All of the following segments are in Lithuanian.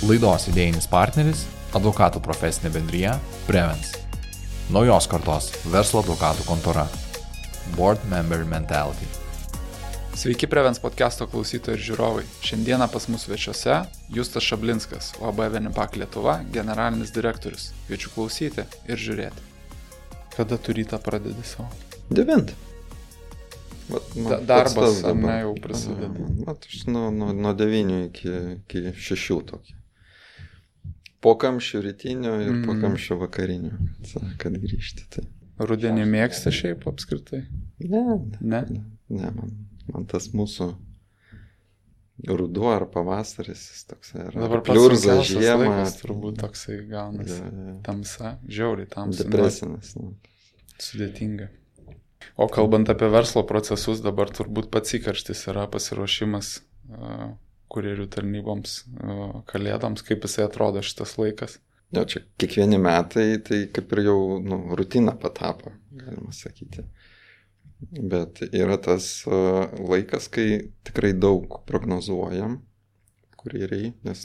Laidos idėjinis partneris – advokatų profesinė bendrija Prevens. Naujos kartos verslo advokatų kontora. Board Member Mentality. Sveiki Prevens podcast'o klausytojai ir žiūrovai. Šiandieną pas mus svečiuose Justas Šablinskas, UAB Venipak Lietuva, generalinis direktorius. Kviečiu klausyti ir žiūrėti. Kada tu rytą pradedi savo? 9. Darbas ar ne jau prasideda? Aš nuo 9 iki 6 tokį. Po kamščių rytinio ir po kamščių vakarinio, kad grįžti. Tai. Rudenį mėgsti šiaip apskritai? Ne, man tas mūsų ruduo ar pavasaris toksai yra. Dabar pliurza žiemą. Laikas, turbūt toksai gaunasi. Tamsa, žiauriai tamsa. Depresinis. Sudėtinga. O kalbant apie verslo procesus, dabar turbūt pats įkarštis yra pasiruošimas kurjerių tarnyboms, kalėdoms, kaip jisai atrodo šitas laikas. Jo, čia kiekvieni metai, tai kaip ir jau rutina patapo, galima sakyti. Bet yra tas laikas, kai tikrai daug prognozuojam kurjeriai, nes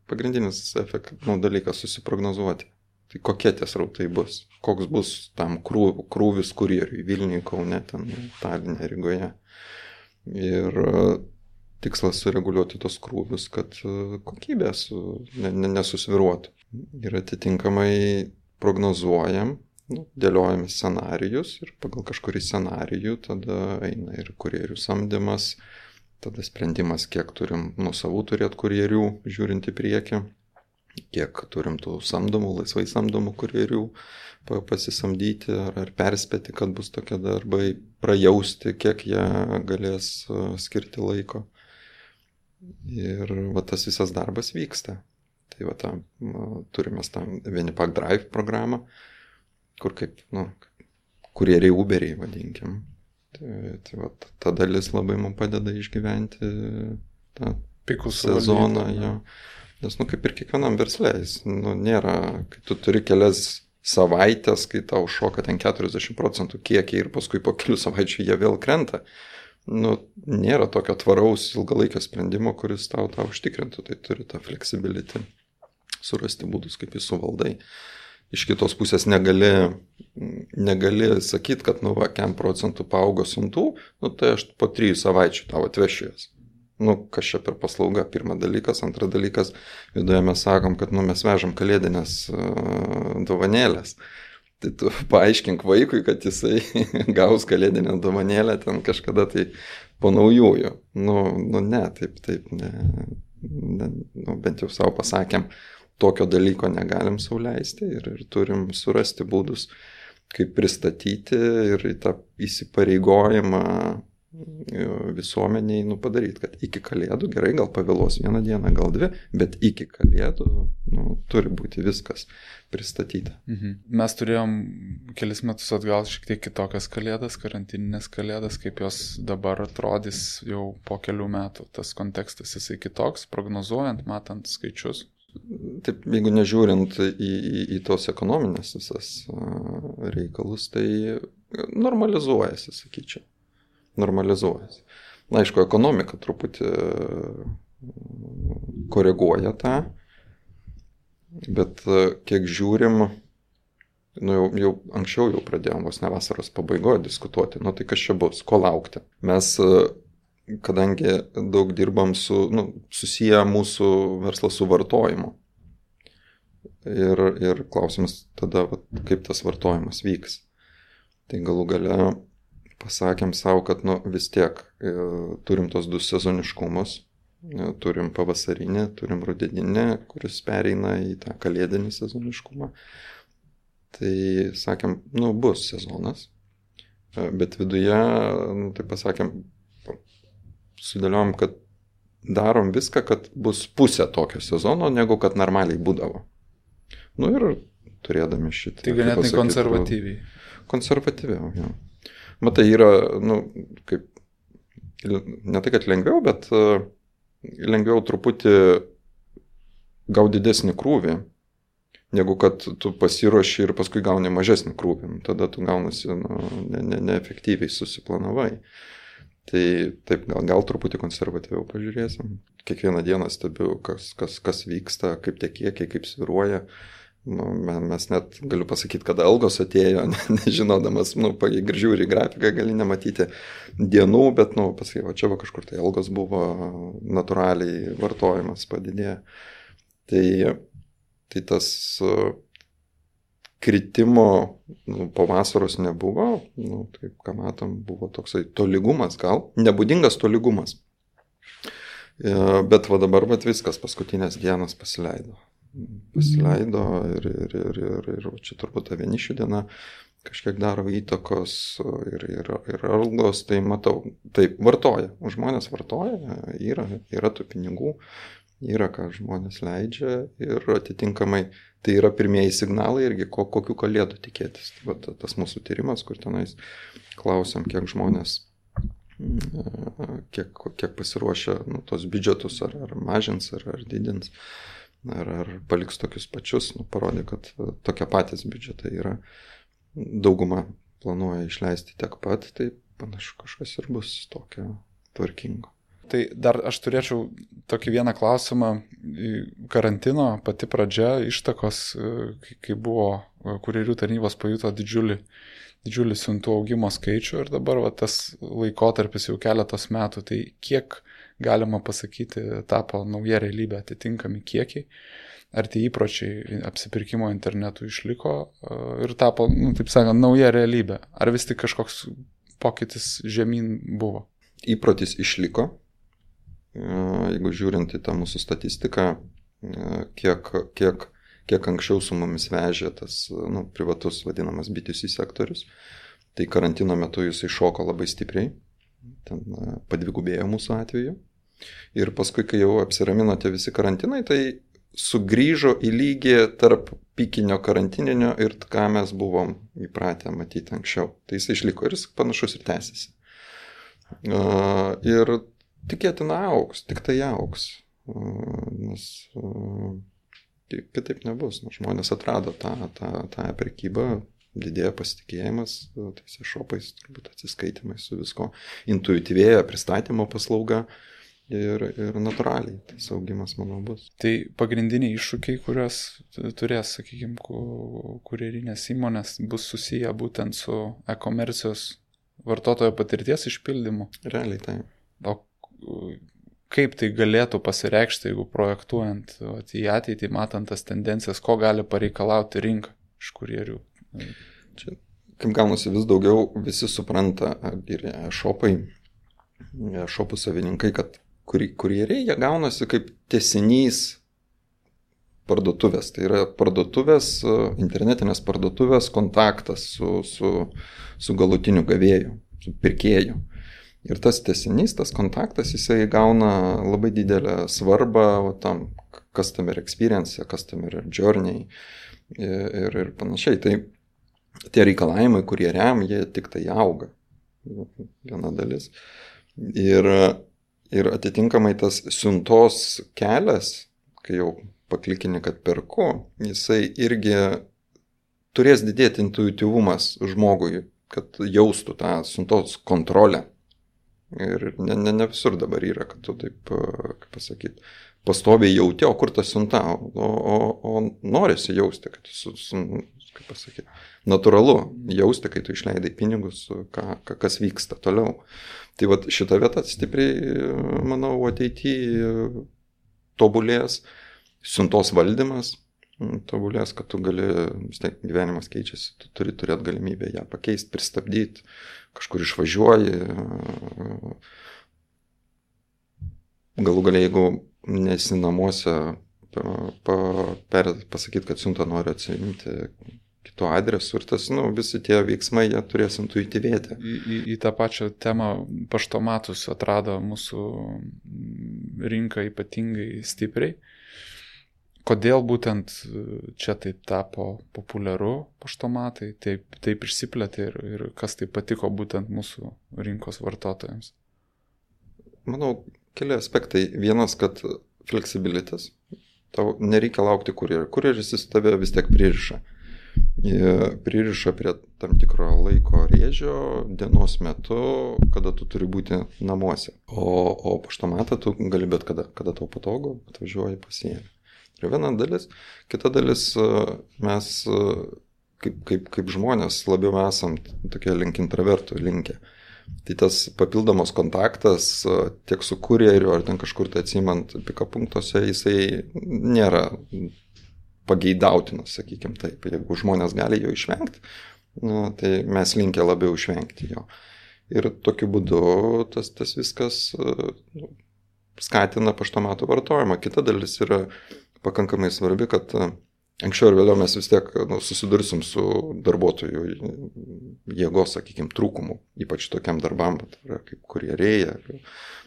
pagrindinis dalykas susiprognozuoti. Tai kokie tie srautai bus, koks bus tam krūvis kurjeriui Vilniuje, Kaune, Taline, Rygoje. Ir tikslas sureguliuoti tos krūvius, kad kokybė nesusviruotų. Ir atitinkamai prognozuojam, dėliojame scenarijus ir pagal kažkurį scenarijų tada eina ir kurjerių samdymas, tada sprendimas, kiek turim nuosavų turėti kurjerių, žiūrint į priekį, kiek turim tų samdomų, laisvai samdomų kurjerių pasisamdyti ar perspėti, kad bus tokie darbai, prajausti, kiek jie galės skirti laiko. Ir tas visas darbas vyksta. Tai turime tą Venipak Drive programą, kur kaip, kurjeriai Uberiai vadinkim. Tai ta dalis labai mums padeda išgyventi tą pikų sezoną. Jo. Nes, kaip ir kiekvienam versle, nėra, kai tu turi kelias savaitės, kai tau šoka ten 40% kiekiai ir paskui po kelių savaičių jie vėl krenta. Nėra tokio tvaraus ilgalaikio sprendimo, kuris tau užtikrintų. Tai turi tą flexibility, surasti būdus, kaip jį suvaldai. Iš kitos pusės negali sakyti, kad kiek procentų paaugo siuntų, tai aš po 3 savaičių tau atvešiu jas. Kas čia per paslauga, pirmas dalykas. Antras dalykas, viduje mes sakom, kad mes vežam kalėdinės dovanėlės. Tai tu paaiškink vaikui, kad jisai gaus kalėdinę dovanėlę ten kažkada tai po naujųjų. Ne, taip, ne. Bent jau savo pasakėm, tokio dalyko negalim sau leisti ir turim surasti būdus, kaip pristatyti ir į tą įsipareigojimą visuomeniai padaryti, kad iki kalėdų, gerai, gal pavėlos 1 dieną, gal 2, bet iki kalėdų turi būti viskas pristatyta. Mes turėjom kelis metus atgal šiek tiek kitokias kalėdas, karantininės kalėdas, kaip jos dabar atrodys jau po kelių metų. Tas kontekstas jisai kitoks, prognozuojant, matant skaičius. Taip, jeigu nežiūrint į tos ekonominės visas reikalus, tai normalizuojasi, sakyčiau. Normalizuojasi. Aišku, ekonomika truputį koreguoja tą, bet kiek žiūrim, jau anksčiau pradėjom vos ne vasaros pabaigoje diskutuoti, tai kas čia bus, ko laukti. Mes, kadangi daug dirbam susiję mūsų verslą su vartojimu. Ir klausimas tada, kaip tas vartojimas vyks. Tai galų gale pasakėm savo, kad vis tiek turim tos 2 sezoniškumus, turim pavasarinį, turim rudeninį, kuris pereina į tą kalėdinį sezoniškumą. Tai sakėm, bus sezonas, bet viduje, tai pasakėm, sudėliojom, kad darom viską, kad bus pusė tokio sezono, negu kad normaliai būdavo. Ir turėdami šitą. Tai ganėtinai konservatyviai. Konservatyviau, jo. Matai, yra, kaip, ne tai, kad lengviau, bet lengviau truputį gauti didesnį krūvį, negu kad tu pasiruoši ir paskui gauni mažesnį krūvį. Tada tu gaunasi neefektyviai susiplanavai. Tai taip, gal truputį konservatyviau pažiūrėsim. Kiekvieną dieną stebiu, kas vyksta, kaip tie kiekiai, kaip sviruoja. Nu, mes net, galiu pasakyti, kada algos atėjo, nežinodamas, ir žiūri grafiką, gali nematyti dienų, bet, pasakai, čia kažkur tai algos buvo, natūraliai vartojimas padidėjo. Tai tas kritimo po vasaros nebuvo, taip, ką matom, buvo toksai tolygumas gal, nebūdingas tolygumas. Bet va dabar viskas, paskutinės dienos pasileido ir čia turbūt ta vienišių diena kažkiek daro įtakos ir algos, tai matau, taip, vartoja, žmonės vartoja, yra tų pinigų, yra ką žmonės leidžia ir atitinkamai tai yra pirmieji signalai irgi, kokių kalėdų tikėtis. Tai tas mūsų tyrimas, kur tenais klausiam, kiek žmonės, kiek pasiruošia tos biudžetus, ar mažins, ar didins, ar paliks tokius pačius, parodė, kad tokie patys biudžetai yra. Dauguma planuoja išleisti tiek pat, tai panašu kažkas ir bus tokio tvarkingo. Tai dar aš turėčiau tokį vieną klausimą. Karantino pati pradžia, ištakos, kai buvo kurjerių tarnybos pajuto didžiulį siuntų augimo skaičių ir dabar tas laikotarpis jau keletos metų, tai kiek galima pasakyti tapo nauja realybė, atitinkami kiekiai, ar tie įpročiai apsipirkimo internetu išliko ir tapo, taip sakant, nauja realybė, ar vis tik kažkoks pokytis žemyn buvo? Įprotis išliko. Jeigu žiūrint į tą mūsų statistiką, kiek anksčiau su mumis vežė tas privatus vadinamas B2C sektorius, tai karantino metu jisai šoko labai stipriai, ten padvigubėjo mūsų atveju. Ir paskui, kai jau apsiramino tie visi karantinai, tai sugrįžo į lygį tarp pikinio karantininio ir ką mes buvom įpratę matyti anksčiau. Tai jisai išliko ir jis panašus ir tęsiasi. Ir tikėtina augs, tik tai augs, nes kitaip nebus. Žmonės atrado tą prekybą, didėja pasitikėjimas tais e-shopais, turbūt atsiskaitimais su visko, intuityvėja pristatymo paslauga ir natūraliai tas augimas, manau, bus. Tai pagrindiniai iššūkiai, kuriuos turės, sakykime, kurjerinės įmonės, bus susiję būtent su e-komercijos vartotojo patirties išpildymu. Realiai tai. O kaip tai galėtų pasireikšti, jeigu projektuojant į ateitį, matant tas tendencijas, ko gali pareikalauti rinka iš kurjerių? Čia, kaip gaunasi, vis daugiau visi supranta, ir e-shopai, e-shopų savininkai, kad kurjeriai, jie gaunasi kaip tęsinys parduotuvės. Tai yra parduotuvės, internetinės parduotuvės kontaktas su galutiniu gavėju, su pirkėju. Ir tas tęsinys, tas kontaktas, jisai gauna labai didelę svarbą tam customer experience, customer journey ir panašiai. Tai tie reikalavimai, kurie jie tik tai auga. Viena dalis. Ir atitinkamai tas siuntos kelias, kai jau paklikini, kad perku, jisai irgi turės didėti intuityvumas žmogui, kad jaustų tą siuntos kontrolę. Ir ne visur dabar yra, kad tu taip, kaip pasakyti, pastoviai jauti, o kur ta siunta, o norisi jausti, kad kaip pasakyti, natūralu jausti, kai tu išleidai pinigus, kas vyksta toliau. Tai vat šita vieta stipriai, manau, ateityje tobulės, siuntos valdymas tobulės, kad tu gali, vis tiek gyvenimas keičiasi, tu turi turėti galimybę ją pakeisti, pristabdyti, kažkur išvažiuoji. Galų galia, jeigu nesi namuose, pasakyti, kad siuntą nori atsiimti kitu adresu ir tas, visi tie veiksmai, jie turės intuityvėti. Į tą pačią temą paštomatus atrado mūsų rinka ypatingai stipriai. Kodėl būtent čia taip tapo populiaru paštomatai, taip išsiplėtė ir kas taip patiko būtent mūsų rinkos vartotojams? Manau, keli aspektai. Vienas, kad fleksibilitas. Tau nereikia laukti kurjerio. Kurjeris jis tave vis tiek pririša. pririša prie tam tikro laiko rėžio dienos metu, kada tu turi būti namuose. O paštomatą tu gali bet kada tau patogu, atvažiuoji pasiėmė. Tai viena dalis. Kita dalis, mes kaip žmonės labiau esam tokie link intravertų linkę. Tai tas papildomas kontaktas tiek su kurjeriu ar ten kažkur tai atsimant pika punktuose, jisai nėra pageidautinas, sakykime taip. Jeigu žmonės gali jo išvengti, tai mes linkę labiau išvengti jo. Ir tokiu būdu tas viskas skatina paštomatų vartojimą. Kita dalis yra pakankamai svarbi, kad anksčiau ir vėliau mes vis tiek susidursim su darbuotojų jėgos, sakykime, trūkumu, ypač tokiam darbam, kaip kurjeriai,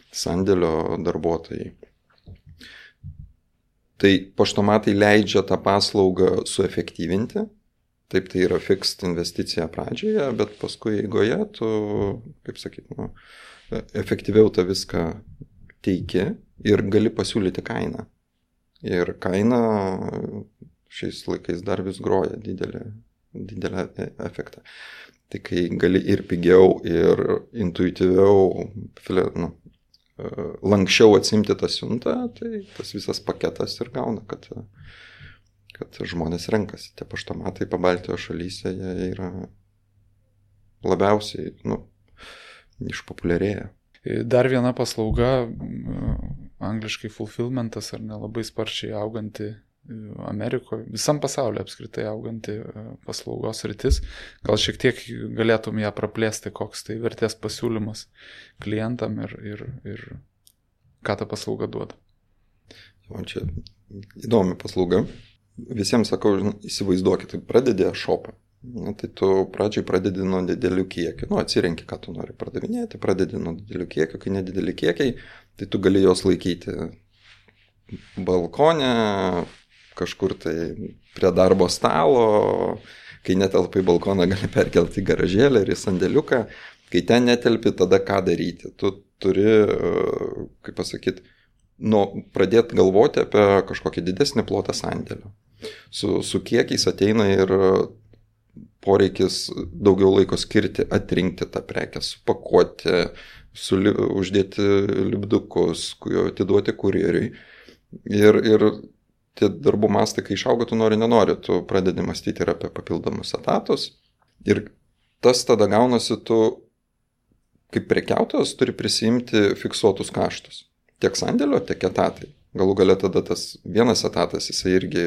sandėlio darbuotojai. Tai paštomatai leidžia tą paslaugą suefektyvinti, taip tai yra fixed investicija pradžioje, bet paskui eigoje tu, kaip sakyti, efektyviau tą viską teiki ir gali pasiūlyti kainą. Ir kaina šiais laikais dar vis groja didelę efektą. Tai kai gali ir pigiau, ir intuityviau, lankščiau atsimti tą siuntą, tai tas visas paketas ir gauna, kad žmonės renkasi. Tie paštomatai Pabaltijos šalyse, jie yra labiausiai, išpopuliarėję. Dar viena paslauga, angliškai fulfillmentas, ar nelabai sparčiai auganti Amerikoje, visam pasaulyje apskritai auganti paslaugos rytis. Gal šiek tiek galėtum ją praplėsti, koks tai vertės pasiūlymas klientam ir ką ta paslauga duoda. O čia įdomi paslauga. Visiems sakau, įsivaizduokit, pradedi shopą. Tai tu pradžiai pradedi nuo didelių kiekių. Atsirenki, ką tu nori pardavinėti, pradedi nuo didelių kiekių, kai nedideli kiekiai, tai tu gali jos laikyti balkone, kažkur tai prie darbo stalo, kai netelpai balkoną gali perkelti į garažėlę ir į sandėliuką, kai ten netelpi, tada ką daryti. Tu turi, kaip pasakyti, pradėti galvoti apie kažkokį didesnį plotą sandėlio. Su kiekiais ateina ir poreikis daugiau laiko skirti, atrinkti tą prekę, supakuoti, uždėti lipdukus, atiduoti kurjeriui. Ir tie darbų mastai, kai išauga, tu nenori, tu pradedi mąstyti ir apie papildomus etatus. Ir tas tada gaunasi, tu kaip prekiautojas turi prisiimti fiksuotus kaštus. Tiek sandėlio, tiek etatai. Galų gale tada tas vienas etatas, jisai irgi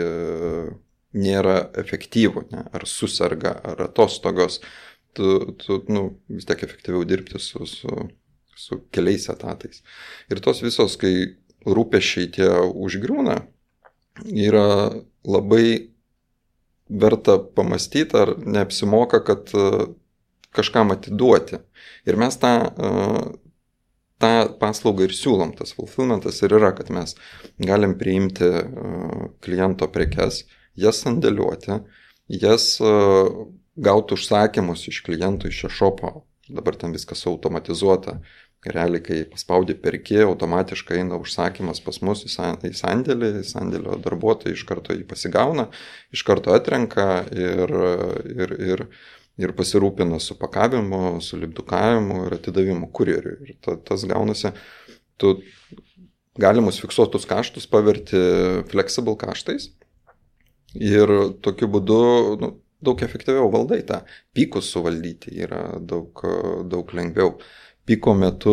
nėra efektyvų, ne? Ar susirga, ar atostogos. Tu vis tiek efektyviau dirbti su keliais etatais. Ir tos visos, kai rūpesčiai tie užgriūna, yra labai verta pamastyti, ar neapsimoka, kad kažkam atiduoti. Ir mes tą paslaugą ir siūlom, tas fulfillmentas ir yra, kad mes galim priimti kliento prekes, jas sandėliuoti, jas gauti užsakymus iš klientų, iš šopo. Dabar ten viskas automatizuota. Realiai, kai paspaudi perki, automatiškai eina užsakymas pas mus į sandėlį, sandėlio darbuotojai iš karto jį pasigauna, iš karto atrenka ir pasirūpina su pakavimu, su lipdukavimu ir atidavimu kurjeriui. Ir tas gaunasi, tu galimus fiksuotus kaštus paverti flexible kaštais ir tokiu būdu daug efektyviau valdai tą. Pykus suvaldyti yra daug lengviau. Piko metu,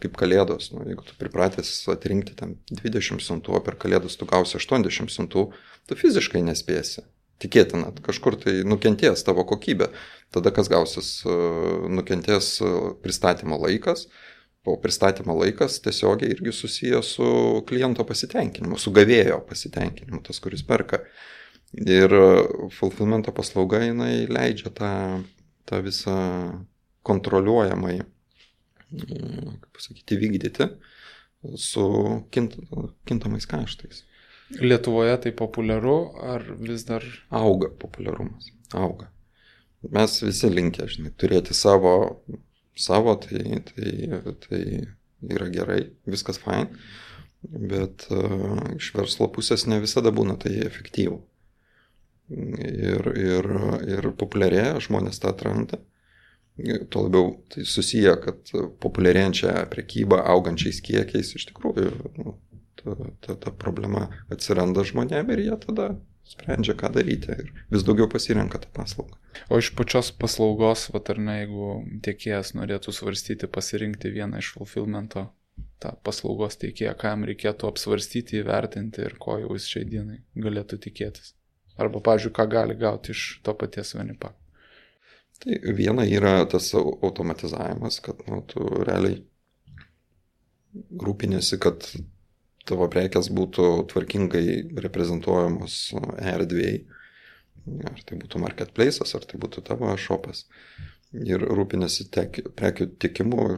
kaip kalėdos, jeigu tu pripratęs atrinkti ten 20 siuntų, o per kalėdas tu gausi 80 siuntų, tu fiziškai nespėsi. Tikėtina, kažkur tai nukentės tavo kokybė. Tada kas gausis, nukentės pristatymo laikas, o pristatymo laikas tiesiogiai irgi susijęs su kliento pasitenkinimu, su gavėjo pasitenkinimu, tas, kuris perka. Ir fulfillmento paslauga, jinai leidžia tą visą kontroliuojamai, kaip pasakyti, vykdyti su kintamais kaštais. Lietuvoje tai populiaru, ar vis dar? Auga populiarumas, auga. Mes visi linkę, turėti savo, tai yra gerai, viskas fine, bet iš verslo pusės ne visada būna tai efektyvu. ir populiarėja, žmonės tą atranda. Tuo labiau tai susiję, kad populiarėjančią prekybą augančiais kiekiais iš tikrųjų ta problema atsiranda žmonėm ir jie tada sprendžia, ką daryti ir vis daugiau pasirenka tą paslaugą. O iš pačios paslaugos, ar ne, jeigu tiekėjas norėtų svarstyti, pasirinkti vieną iš fulfillmento, tą paslaugos teikėją, ką jam reikėtų apsvarstyti, įvertinti ir ko jau jis šiai dienai galėtų tikėtis. Arba, pavyzdžiui, ką gali gauti iš to paties Venipak. Tai viena yra tas automatizavimas, kad tu realiai rūpinėsi, kad tavo prekės būtų tvarkingai reprezentuojamos erdvėj. Ar tai būtų marketplace'as, ar tai būtų tavo shopas. Ir rūpinėsi prekių tiekimu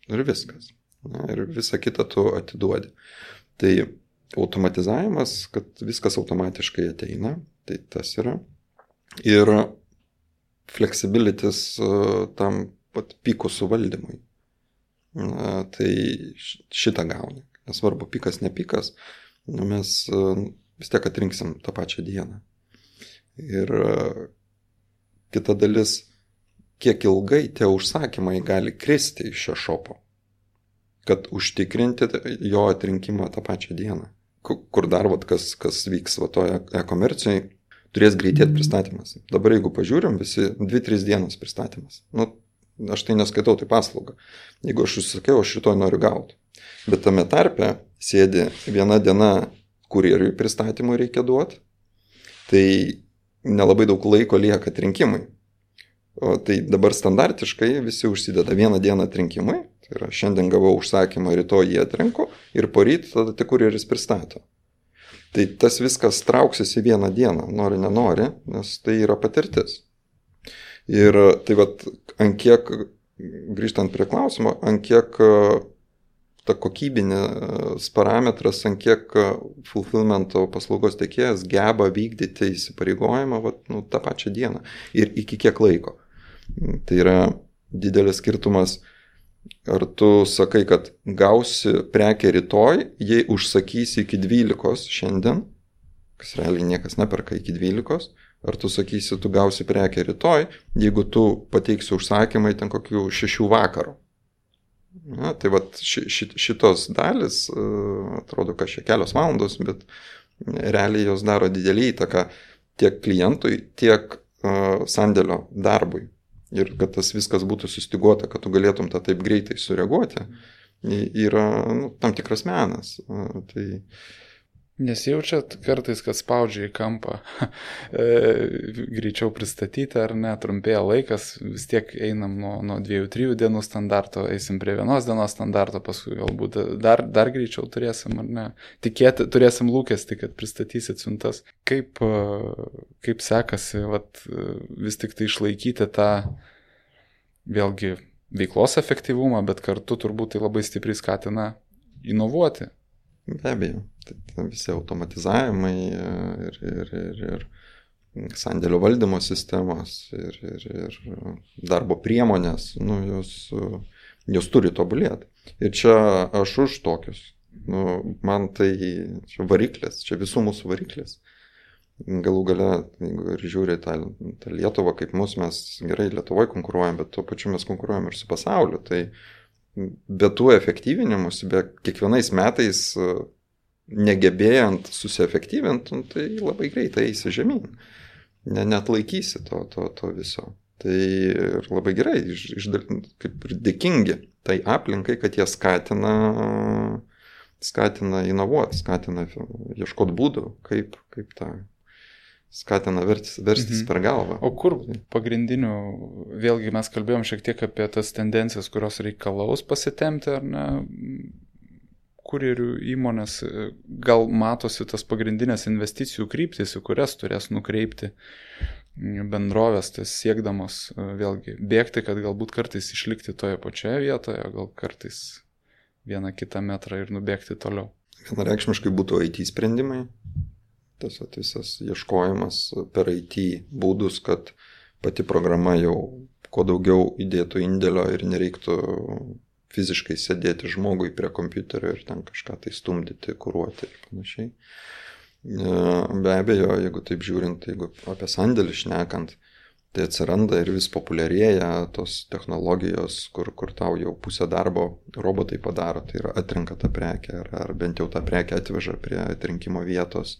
ir viskas. Ir visą kitą tu atiduodi. Tai automatizavimas, kad viskas automatiškai ateina, tai tas yra. Ir flexibilities tam pat pikų suvaldymui. Tai šitą gauni. Nesvarbu, pikas, ne pikas, mes vis tiek atrinksim tą pačią dieną. Ir kita dalis, kiek ilgai tie užsakymai gali kristi iš šio šopo, kad užtikrinti jo atrinkimą tą pačią dieną. Kur dar, kas vyks toje e-komercijoje, turės greitėti pristatymas. Dabar jeigu pažiūrim, visi 2-3 dienos pristatymas. Aš tai neskaitau, tai paslauga. Jeigu aš užsakiau, aš rytoj noriu gauti. Bet tame tarpe sėdi viena diena kurjeriui pristatymui reikia duoti, tai nelabai daug laiko lieka atrinkimui. O tai dabar standartiškai visi užsideda vieną dieną atrinkimui, tai yra šiandien gavau užsakymą, rytoj jį atrinku ir poryt tada tik kurjeris pristato. Tai tas viskas trauksis į vieną dieną, nori, nenori, nes tai yra patirtis. Ir tai ant kiek, grįžtant prie klausimo, ant kiek ta kokybinės parametras, ant kiek fulfillmento paslaugos tiekėjas geba vykdyti įsipareigojimą tą pačią dieną ir iki kiek laiko. Tai yra didelis skirtumas, ar tu sakai, kad gausi prekę rytoj, jei užsakysi iki 12 šiandien, kas realiai niekas neperka iki 12, ar tu sakysi, tu gausi prekę rytoj, jeigu tu pateiksi užsakymai ten kokių 6 vakaro. Na, tai šitos dalis, atrodo, kad čia kelios valandos, bet realiai jos daro didelį įtaką tiek klientui, tiek sandėlio darbui. Ir kad tas viskas būtų sustyguota, kad tu galėtum tą taip greitai sureaguoti, yra tam tikras menas. Tai nesijaučiat kartais, kad spaudžia į kampą greičiau pristatyti, ar ne, trumpėja laikas, vis tiek einam nuo 2-3 dienų standarto, eisim prie 1 dienos standarto, paskui galbūt dar greičiau turėsim, ar ne, turėsim lūkestį, kad pristatysit siuntas. Kaip sekasi vis tik tai išlaikyti tą vėlgi veiklos efektyvumą, bet kartu turbūt tai labai stipriai skatina inovuoti. Be abejo, tai visi automatizavimai ir sandėlio valdymo sistemos ir darbo priemonės, jos turi tobulėti. Ir čia aš už tokius. Man tai čia variklis, čia visų mūsų variklis. Galų gale, ir žiūri tą Lietuvą, kaip mes gerai Lietuvoje konkuruojam, bet tuo pačiu mes konkuruojam ir su pasauliu. Tai be tų efektyvinimus, be kiekvienais metais negebėjant susiefektyvinti, tai labai greitai eisi žemyn. Neatlaikysi to viso. Tai ir labai gerai, kaip ir dėkingi tai aplinkai, kad jie skatina inovuoti, skatina ieškoti būdų, kaip tą skatina verstis per galvą. O kur pagrindinių, vėlgi mes kalbėjom šiek tiek apie tas tendencijas, kurios reikalaus pasitemti, ar ne, kurjerių įmonės, gal matosi tas pagrindinės investicijų kryptis, į kurias turės nukreipti bendrovės, tas siekdamos vėlgi bėgti, kad galbūt kartais išlikti toje pačioje vietoje, gal kartais 1-2 metrą ir nubėgti toliau. Vienareikšmiškai būtų IT sprendimai. Tas visas ieškojimas per IT būdus, kad pati programa jau kuo daugiau įdėtų indėlio ir nereiktų fiziškai sėdėti žmogui prie kompiuterio ir ten kažką tai stumdyti, kuruoti ir panašiai. Be abejo, jeigu taip žiūrint, jeigu apie sandėlį šnekant, tai atsiranda ir vis populiarėja tos technologijos, kur tau jau pusę darbo robotai padaro, tai yra atrenka tą prekę ar bent jau tą prekę atveža prie atrinkimo vietos.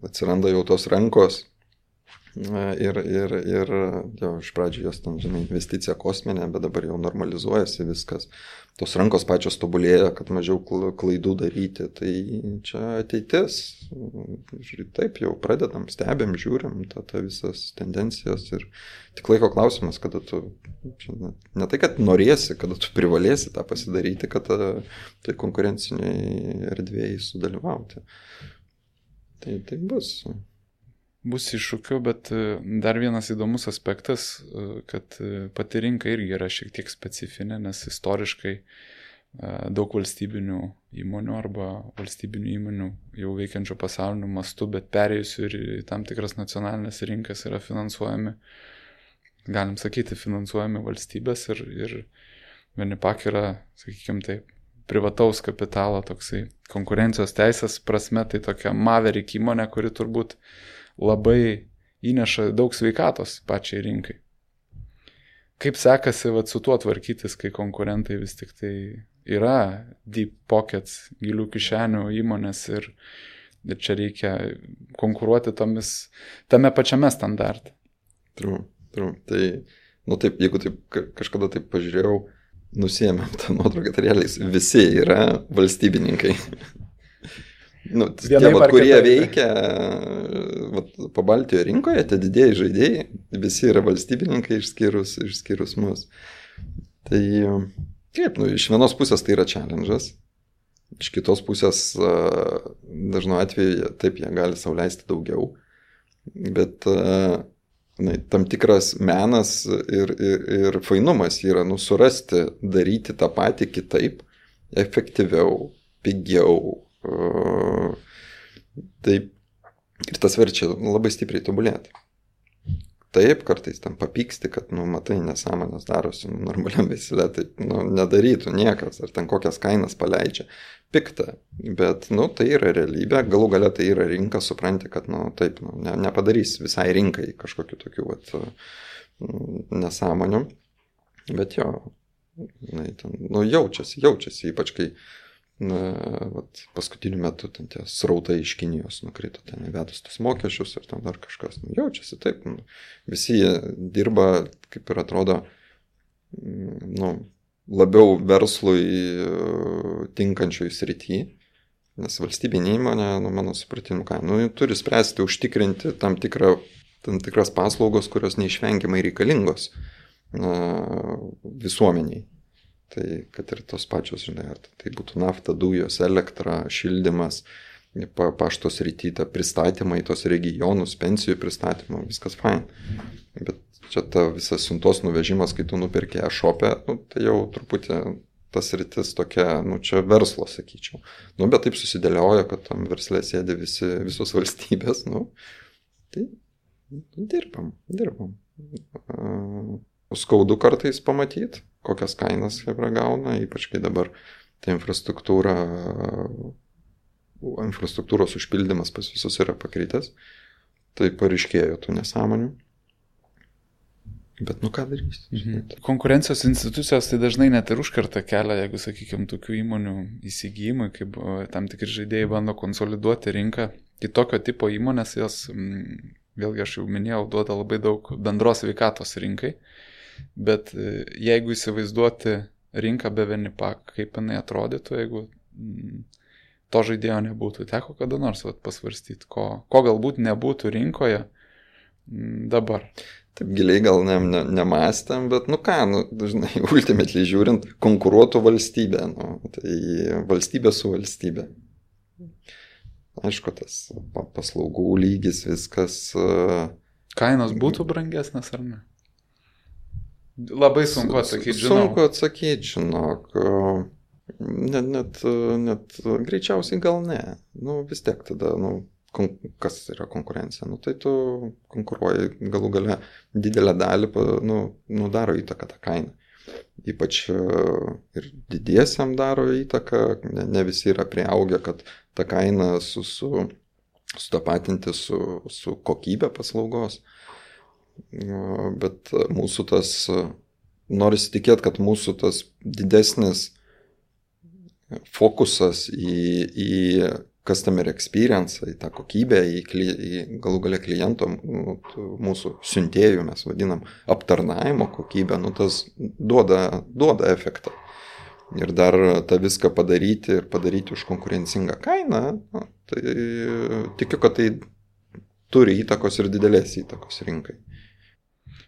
Atsiranda jau tos rankos ir jau iš pradžių jos ten, žinai, investicija kosminė, bet dabar jau normalizuojasi viskas. Tos rankos pačios tobulėja, kad mažiau klaidų daryti, tai čia ateitis. Taip jau pradedam, stebėm, žiūrim tą visas tendencijas ir tik laiko klausimas, kada tu, ne tai, kad norėsi, kada tu privalėsi tą pasidaryti, kad tai konkurenciniai erdvėjai sudalyvauti. Tai bus. Bus iššūkių, bet dar vienas įdomus aspektas, kad pati rinka irgi yra šiek tiek specifinė, nes istoriškai daug valstybinių įmonių arba valstybinių įmonių jau veikiančių pasauliniu mastu, bet perėjusių ir į tam tikras nacionalinės rinkas yra finansuojami, galim sakyti, finansuojami valstybės ir Venipak yra, sakykime taip, privataus kapitalo toksai konkurencijos teisės prasme, tai tokia Maverick įmonė, kuri turbūt labai įneša daug sveikatos pačiai rinkai. Kaip sekasi su tuo tvarkytis, kai konkurentai vis tik tai yra deep pockets, gilių kišenių įmonės ir čia reikia konkuruoti tame pačiame standarte? True. Tai, taip, jeigu taip kažkada taip pažiūrėjau, nusiėmėm tą nuotrauką, tai realiai visi yra valstybininkai. Tie, kurie veikia Pabaltijo rinkoje, tie didieji žaidėjai, visi yra valstybininkai išskyrus mus. Tai kaip, iš vienos pusės tai yra challenge'as, iš kitos pusės dažnu atveju taip jie gali sau leisti daugiau, bet tam tikras menas ir fainumas yra surasti, daryti tą patį kitaip, efektyviau, pigiau. Taip, ir tas verčia labai stipriai tobulėti. Taip, kartais tam papyksti, kad, matai, nesąmonės darosi normaliam veisle, taip, nedarytų niekas, ar ten kokias kainas paleidžia. Pikta, bet, tai yra realybė, galų gale tai yra rinka, supranti, kad, taip, nepadarys visai rinkai kažkokiu tokiu, nesąmonių, bet jo, jaučiasi, ypač kai paskutiniu metu ten tie srautai iš Kinijos nukrito, ten įvedus tos mokesčius ir ten dar kažkas. Jaučiasi taip, visi dirba, kaip ir atrodo, labiau verslui tinkančioj srity, nes valstybinė įmonė, mano supratimu, turi spręsti, užtikrinti tam tikras paslaugos, kurios neišvengiamai reikalingos visuomeniai. Tai kad ir tos pačios, žinai, ar tai būtų nafta, dujos, elektra, šildymas, pašto srityta, pristatymai tos regionus, pensijų pristatymą, viskas fine. Bet čia ta visas siuntos nuvežimas, kai tu nupirki e-shop'e, tai jau truputį tas sritis tokia, čia verslo, sakyčiau. Bet taip susidėlioja, kad tam versle sėdi visos valstybės, tai dirbam. Skaudu kartais pamatyti, kokias kainas Hebra gauna, ypač kai dabar ta infrastruktūros užpildymas pas visus yra pakritęs, tai pareiškėjo tų nesąmonių. Bet ką darysi? Konkurencijos institucijos tai dažnai net ir užkerta kelią, jeigu, sakykime, tokių įmonių įsigijimai, kaip tam tikri žaidėjai bando konsoliduoti rinką. Kitokio tipo įmonės, jos, vėlgi aš jau minėjau, duoda labai daug bendros sveikatos rinkai. Bet jeigu įsivaizduoti rinką be Venipak, kaip jinai atrodytų, jeigu to žaidėjo nebūtų, teko kada nors pasvarstyti, ko galbūt nebūtų rinkoje dabar. Taip giliai gal nemąstėm, bet dažnai ultimately žiūrint, konkuruotų valstybė, tai valstybė su valstybė. Aišku, tas paslaugų lygis, viskas. Kainos būtų brangesnės ar ne? Labai sunku atsakyti, žinau. Sunku atsakyti, žinok. Net greičiausiai gal ne. Vis tiek tada, kas yra konkurencija? Tai tu konkuruoji galų gale didelę dalį, daro įtaką tą kainą. ypač ir didiesiam daro įtaką, ne visi yra prieaugę, kad tą kainą sutapatinti su kokybė paslaugos. Bet mūsų tas, norisi tikėti, kad mūsų tas didesnis fokusas į customer experience, į tą kokybę, į galų gale kliento, mūsų siuntėjų, mes vadinam, aptarnavimo kokybę, tas duoda efektą. Ir dar tą viską padaryti už konkurencingą kainą, tai tikiu, kad tai turi įtakos ir didelės įtakos rinkai.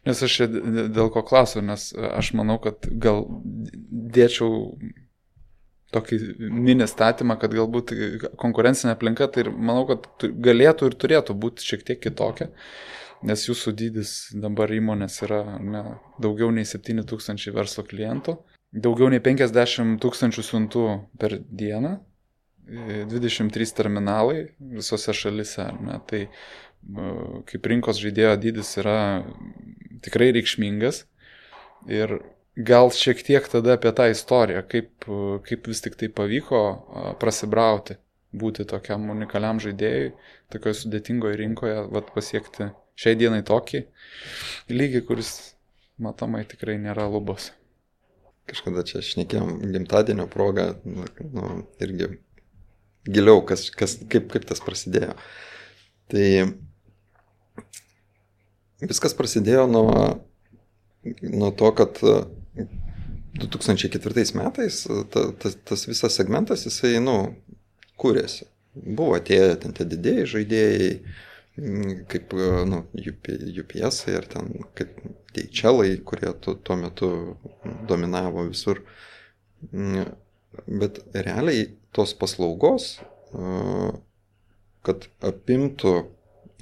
Nes aš dėl ko klausiu, nes aš manau, kad gal dėčiau tokį mini statymą, kad galbūt konkurencinė aplinka, tai manau, kad galėtų ir turėtų būti šiek tiek kitokia, nes jūsų dydis dabar įmonės yra daugiau nei 7 000 verslo klientų, daugiau nei 50 000 siuntų per dieną, 23 terminalai visose šalise. Tai kaip rinkos žaidėjo dydis yra tikrai reikšmingas ir gal šiek tiek tada apie tą istoriją, kaip vis tik tai pavyko prasibrauti, būti tokiam unikaliam žaidėjui, tokioje sudėtingoje rinkoje, pasiekti šiai dienai tokį lygį, kuris matomai tikrai nėra lubos. Kažkada čia šnekėjom gimtadienio progą, irgi giliau, kaip tas prasidėjo. Tai viskas prasidėjo nuo to, kad 2004 metais tas visas segmentas, jisai, kūrėsi. Buvo atėję ten tie didėjai žaidėjai, kaip, UPS ir ten kaip DHL-ai, kurie tuo metu dominavo visur. Bet realiai tos paslaugos, kad apimtų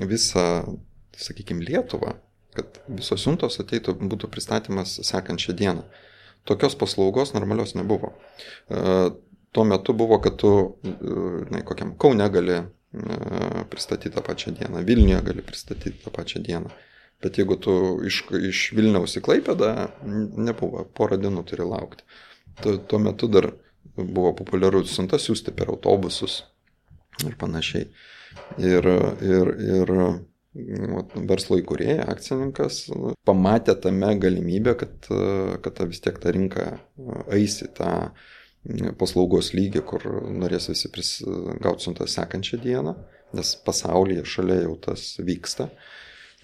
visą, sakykime, Lietuvą, kad visos siuntos ateitų, būtų pristatymas sekančią dieną. Tokios paslaugos normalios nebuvo. Tuo metu buvo, kad tu kokiam Kaune gali pristatyti tą pačią dieną, Vilniuje gali pristatyti tą pačią dieną. Bet jeigu tu iš Vilniaus į Klaipėdą, nebuvo, porą dienų turi laukti. Tuo metu dar buvo populiaru siuntas siųsti per autobusus ir panašiai. Ir verslo įkūrėja, akcininkas, pamatė tame galimybę, kad vis tiek ta rinka eis į tą paslaugos lygį, kur norės visi gauti siuntą sekančią dieną, nes pasaulyje šalia jau tas vyksta.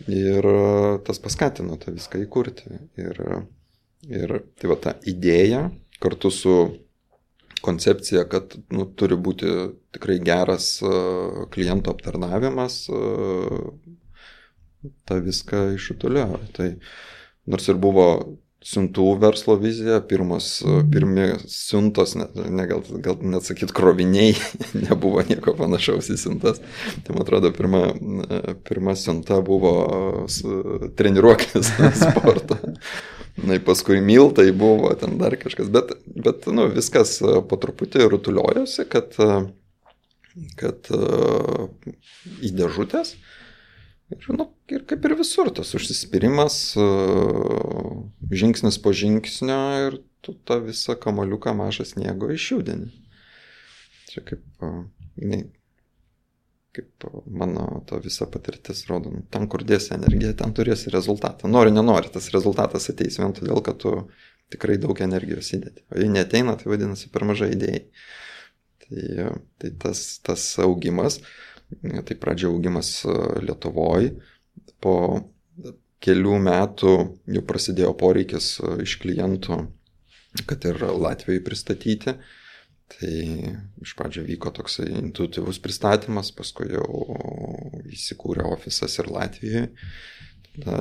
Ir tas paskatino tą viską įkurti. Ir tai ta idėja kartu su koncepcija, kad turi būti tikrai geras kliento aptarnavimas, tą viską išutuliojo. Tai nors ir buvo siuntų verslo vizija, pirmi siuntos, gal net sakyt kroviniai, nebuvo nieko panašaus į siuntas. Tai man atrodo, pirma siunta buvo treniruoklis sporto. Paskui miltai buvo, ten dar kažkas, bet viskas po truputį rutuliojosi, kad į dėžutės ir kaip ir visur tas užsispyrimas, žingsnis po žingsnio ir tu tą visą kamaliuką mažą sniego išjudini. Čia kaip mano ta visa patirtis rodo, ten kur dėsi energiją, ten turėsi rezultatą. Nori, nenori, tas rezultatas ateis vien todėl, kad tu tikrai daug energijos įdėti. O jei neateina, tai vadinasi per mažai idėjai. Tai tas augimas, tai pradžia augimas Lietuvoje, po kelių metų jau prasidėjo poreikis iš klientų, kad ir Latvijoje pristatyti. Tai iš pradžio vyko toksai intuityvus pristatymas, paskui jau įsikūrė ofisas ir Latvijoje.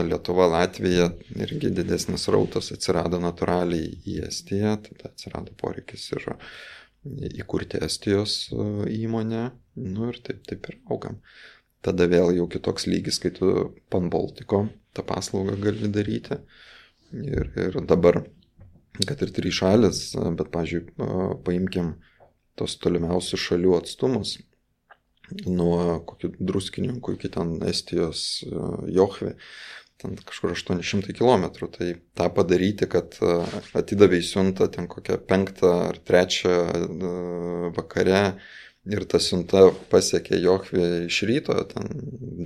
Lietuva, Latvija irgi didesnis rautas atsirado natūraliai į Estiją, tada atsirado poreikis ir įkurti Estijos įmonę, ir taip ir augam. Tada vėl jau kitoks lygis, kai tu Pan-Baltiko tą paslaugą gali daryti. Ir dabar, kad ir 3 šalis, bet, pavyzdžiui, paimkim tos tolimiausių šalių atstumus, nuo kokių Druskininkų iki ten Estijos Johvi, ten kažkur 800 km. Tai tą padaryti, kad atidavai siuntą ten kokią 5 ar 3 vakare ir ta siunta pasiekė Jochvę iš ryto, ten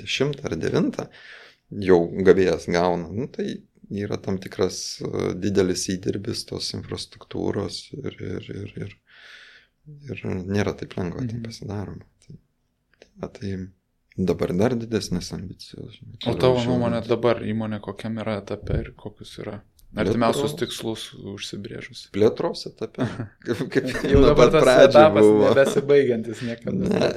10 ar 9, jau gavėjas gauna. Nu, tai yra tam tikras didelis įdirbis tos infrastruktūros ir nėra taip lengva, tai pasidaroma. Tai dabar dar didesnės ambicijos. O tavo nuomonė dabar įmonė kokiam yra etape ir kokius yra artimiausius tikslus užsibrėžus? Plėtros etape. Kaip jau dabar tas etapas nebesibaigiantis niekada. Ne,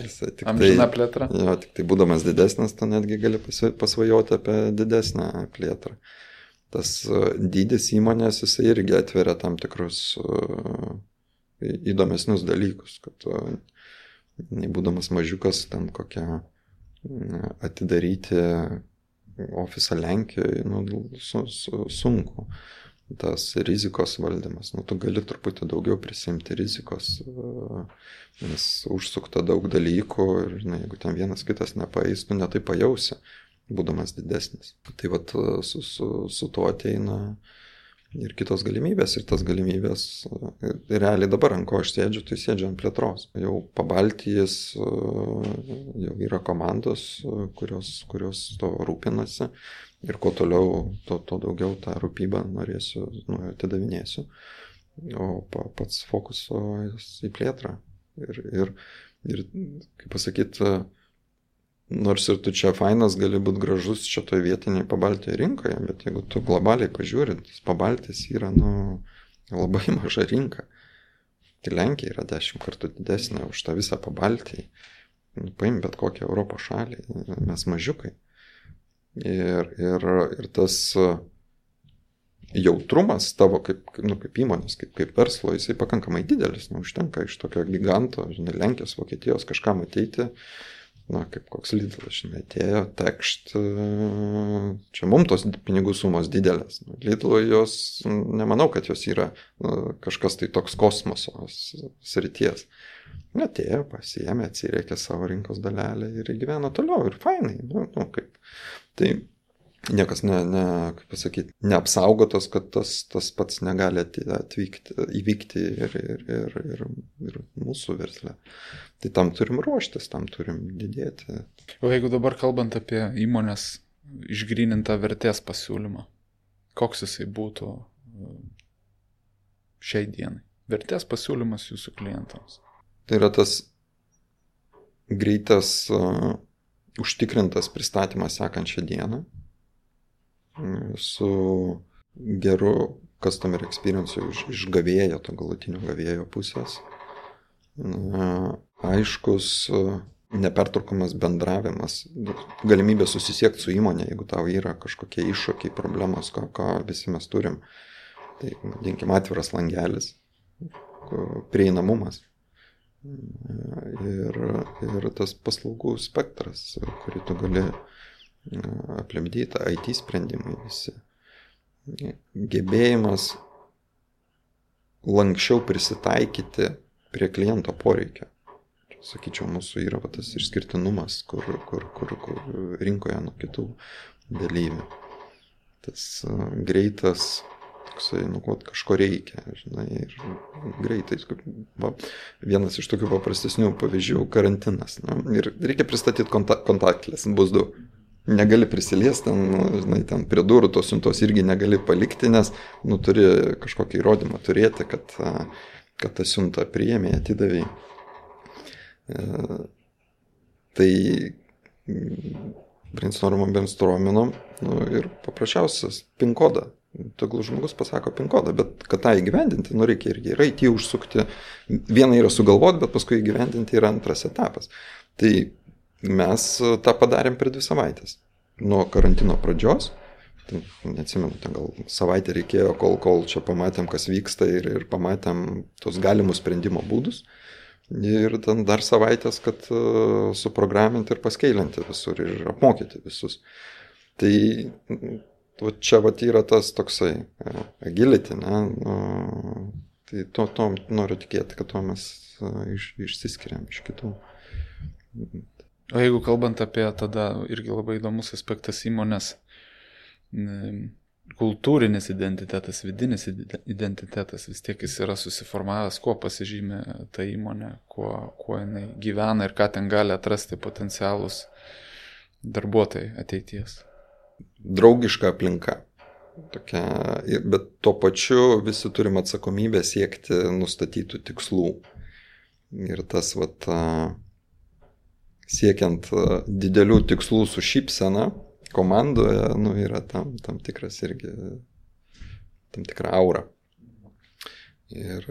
amžina plėtra. Jo, tik tai būdamas didesnis, tu netgi gali pasvajoti apie didesnę plėtrą. Tas dydis įmonės, jisai irgi atveria tam tikrus įdomesnius dalykus, kad būdamas mažiukas, ten kokią atidaryti ofisą Lenkijoje, sunku. Tas rizikos valdymas, tu gali truputį daugiau prisimti rizikos, nes užsukta daug dalykų ir jeigu ten vienas kitas nepaeis, tu netai pajausi, būdamas didesnis. Tai vat su tuo ateina ir kitos galimybės, ir tas galimybės, realiai dabar ant ko aš sėdžiu, tai sėdžiu ant plėtros. Jau Pabaltijis, jau yra komandos, kurios to rūpinasi, ir kuo toliau, to daugiau tą rūpybą norėsiu, atidavinėsiu, o pats fokusas į plėtrą. Ir kaip pasakyti, nors ir tu čia fainas gali būti gražus čia toje vietiniai Pabaltijo rinkoje, bet jeigu tu globaliai pažiūrint, Pabaltis yra labai maža rinka. Tai Lenkija yra 10 kartų didesnė už tą visą Pabaltijį. Paim bet kokią Europos šalį, mes mažiukai. Ir tas jautrumas tavo kaip įmonės, kaip verslo, jisai pakankamai didelis. Užtenka iš tokio giganto, Lenkijos, Vokietijos kažkam ateiti, kaip koks Lidlas, atėjo, tekšt, čia mums tos pinigų sumos didelės. Lidlo jos, nemanau, kad jos yra kažkas tai toks kosmoso srities. Atėjo, pasiėmė, atsirėkė savo rinkos dalelę ir gyvena toliau ir fainai. Tai niekas kaip pasakyti, neapsaugotas, kad tas pats negali įvykti ir mūsų versle. Tai tam turim ruoštis, tam turim didėti. O jeigu dabar kalbant apie įmonės išgrynintą vertės pasiūlymą, koks jisai būtų šiai dienai? Vertės pasiūlymas jūsų klientams. Tai yra tas greitas, užtikrintas pristatymas sekančią dieną, su geru customer experience iš gavėjo, to galutinio gavėjo pusės. Aiškus, nepertraukomas bendravimas, galimybė susisiekti su įmonė, jeigu tau yra kažkokie iššūkiai, problemos, ką visi mes turim. Tai, vadinkim, atviras langelis, prieinamumas. Ir tas paslaugų spektras, kurį tu gali aplimdyti, IT sprendimai visi. Gebėjimas lankščiau prisitaikyti prie kliento poreikio. Sakyčiau, mūsų yra tas išskirtinumas, kur rinkoje nuo kitų dalyvių. Tas greitas, toksai, kažko reikia, ir greitai. Vienas iš tokių paprastesnių pavyzdžių - karantinas. Ir reikia pristatyti kontaktlės, bus du. Negali prisiliesti, ten prie durų tos siuntos irgi negali palikti, nes turi kažkokį įrodymą turėti, kad tą siuntą priėmė, atidavė. Tai brainstorminom ir paprasčiausias PIN kodą. Tegul žmogus pasako PIN kodą, bet kad tą įgyvendinti, reikia irgi ir IT užsukti. Viena yra sugalvoti, bet paskui įgyvendinti yra antras etapas. Tai mes tą padarėm per 2 savaitės. Nuo karantino pradžios, neatsimenu, gal savaitę reikėjo, kol čia pamatėm, kas vyksta ir pamatėm tos galimus sprendimo būdus. Ir ten dar savaitės, kad suprograminti ir paskeilinti visur ir apmokyti visus. Tai čia yra tas toksai agility, tai to noriu tikėti, kad to mes išsiskiriam iš kitų. O jeigu kalbant apie tada irgi labai įdomus aspektas įmonės kultūrinis identitetas, vidinis identitetas, vis tiek jis yra susiformavęs, kuo pasižymė ta įmonė, kuo jinai gyvena ir ką ten gali atrasti potencialus darbuotojai ateities. Draugiška aplinka. Tokia, bet tuo pačiu visi turim atsakomybę siekti nustatytų tikslų. Ir tas siekiant didelių tikslų su šypsena komandoje, yra tam tikras irgi, tam tikra aura. Ir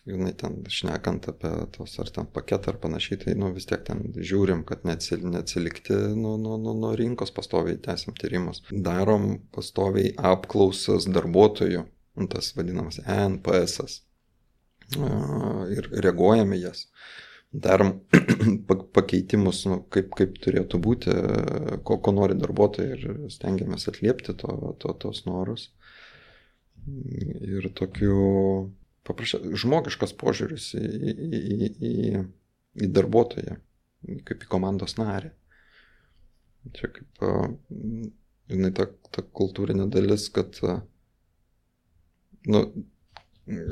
jinai ten šnekant apie tos ar ten paketą ar panašiai, tai vis tiek ten žiūrim, kad neatsilikti nuo rinkos, pastoviai tęsim tyrimus. Darom pastoviai apklausas darbuotojų, tas vadinamas NPS-as. Ir reaguojame jas. Darom pakeitimus, kaip turėtų būti, ko nori darbuotojai ir stengiamės atliepti tos norus. Ir tokiu žmogiškas požiūris į darbuotoją, kaip į komandos narį. Čia kaip jinai ta kultūrinė dalis, kad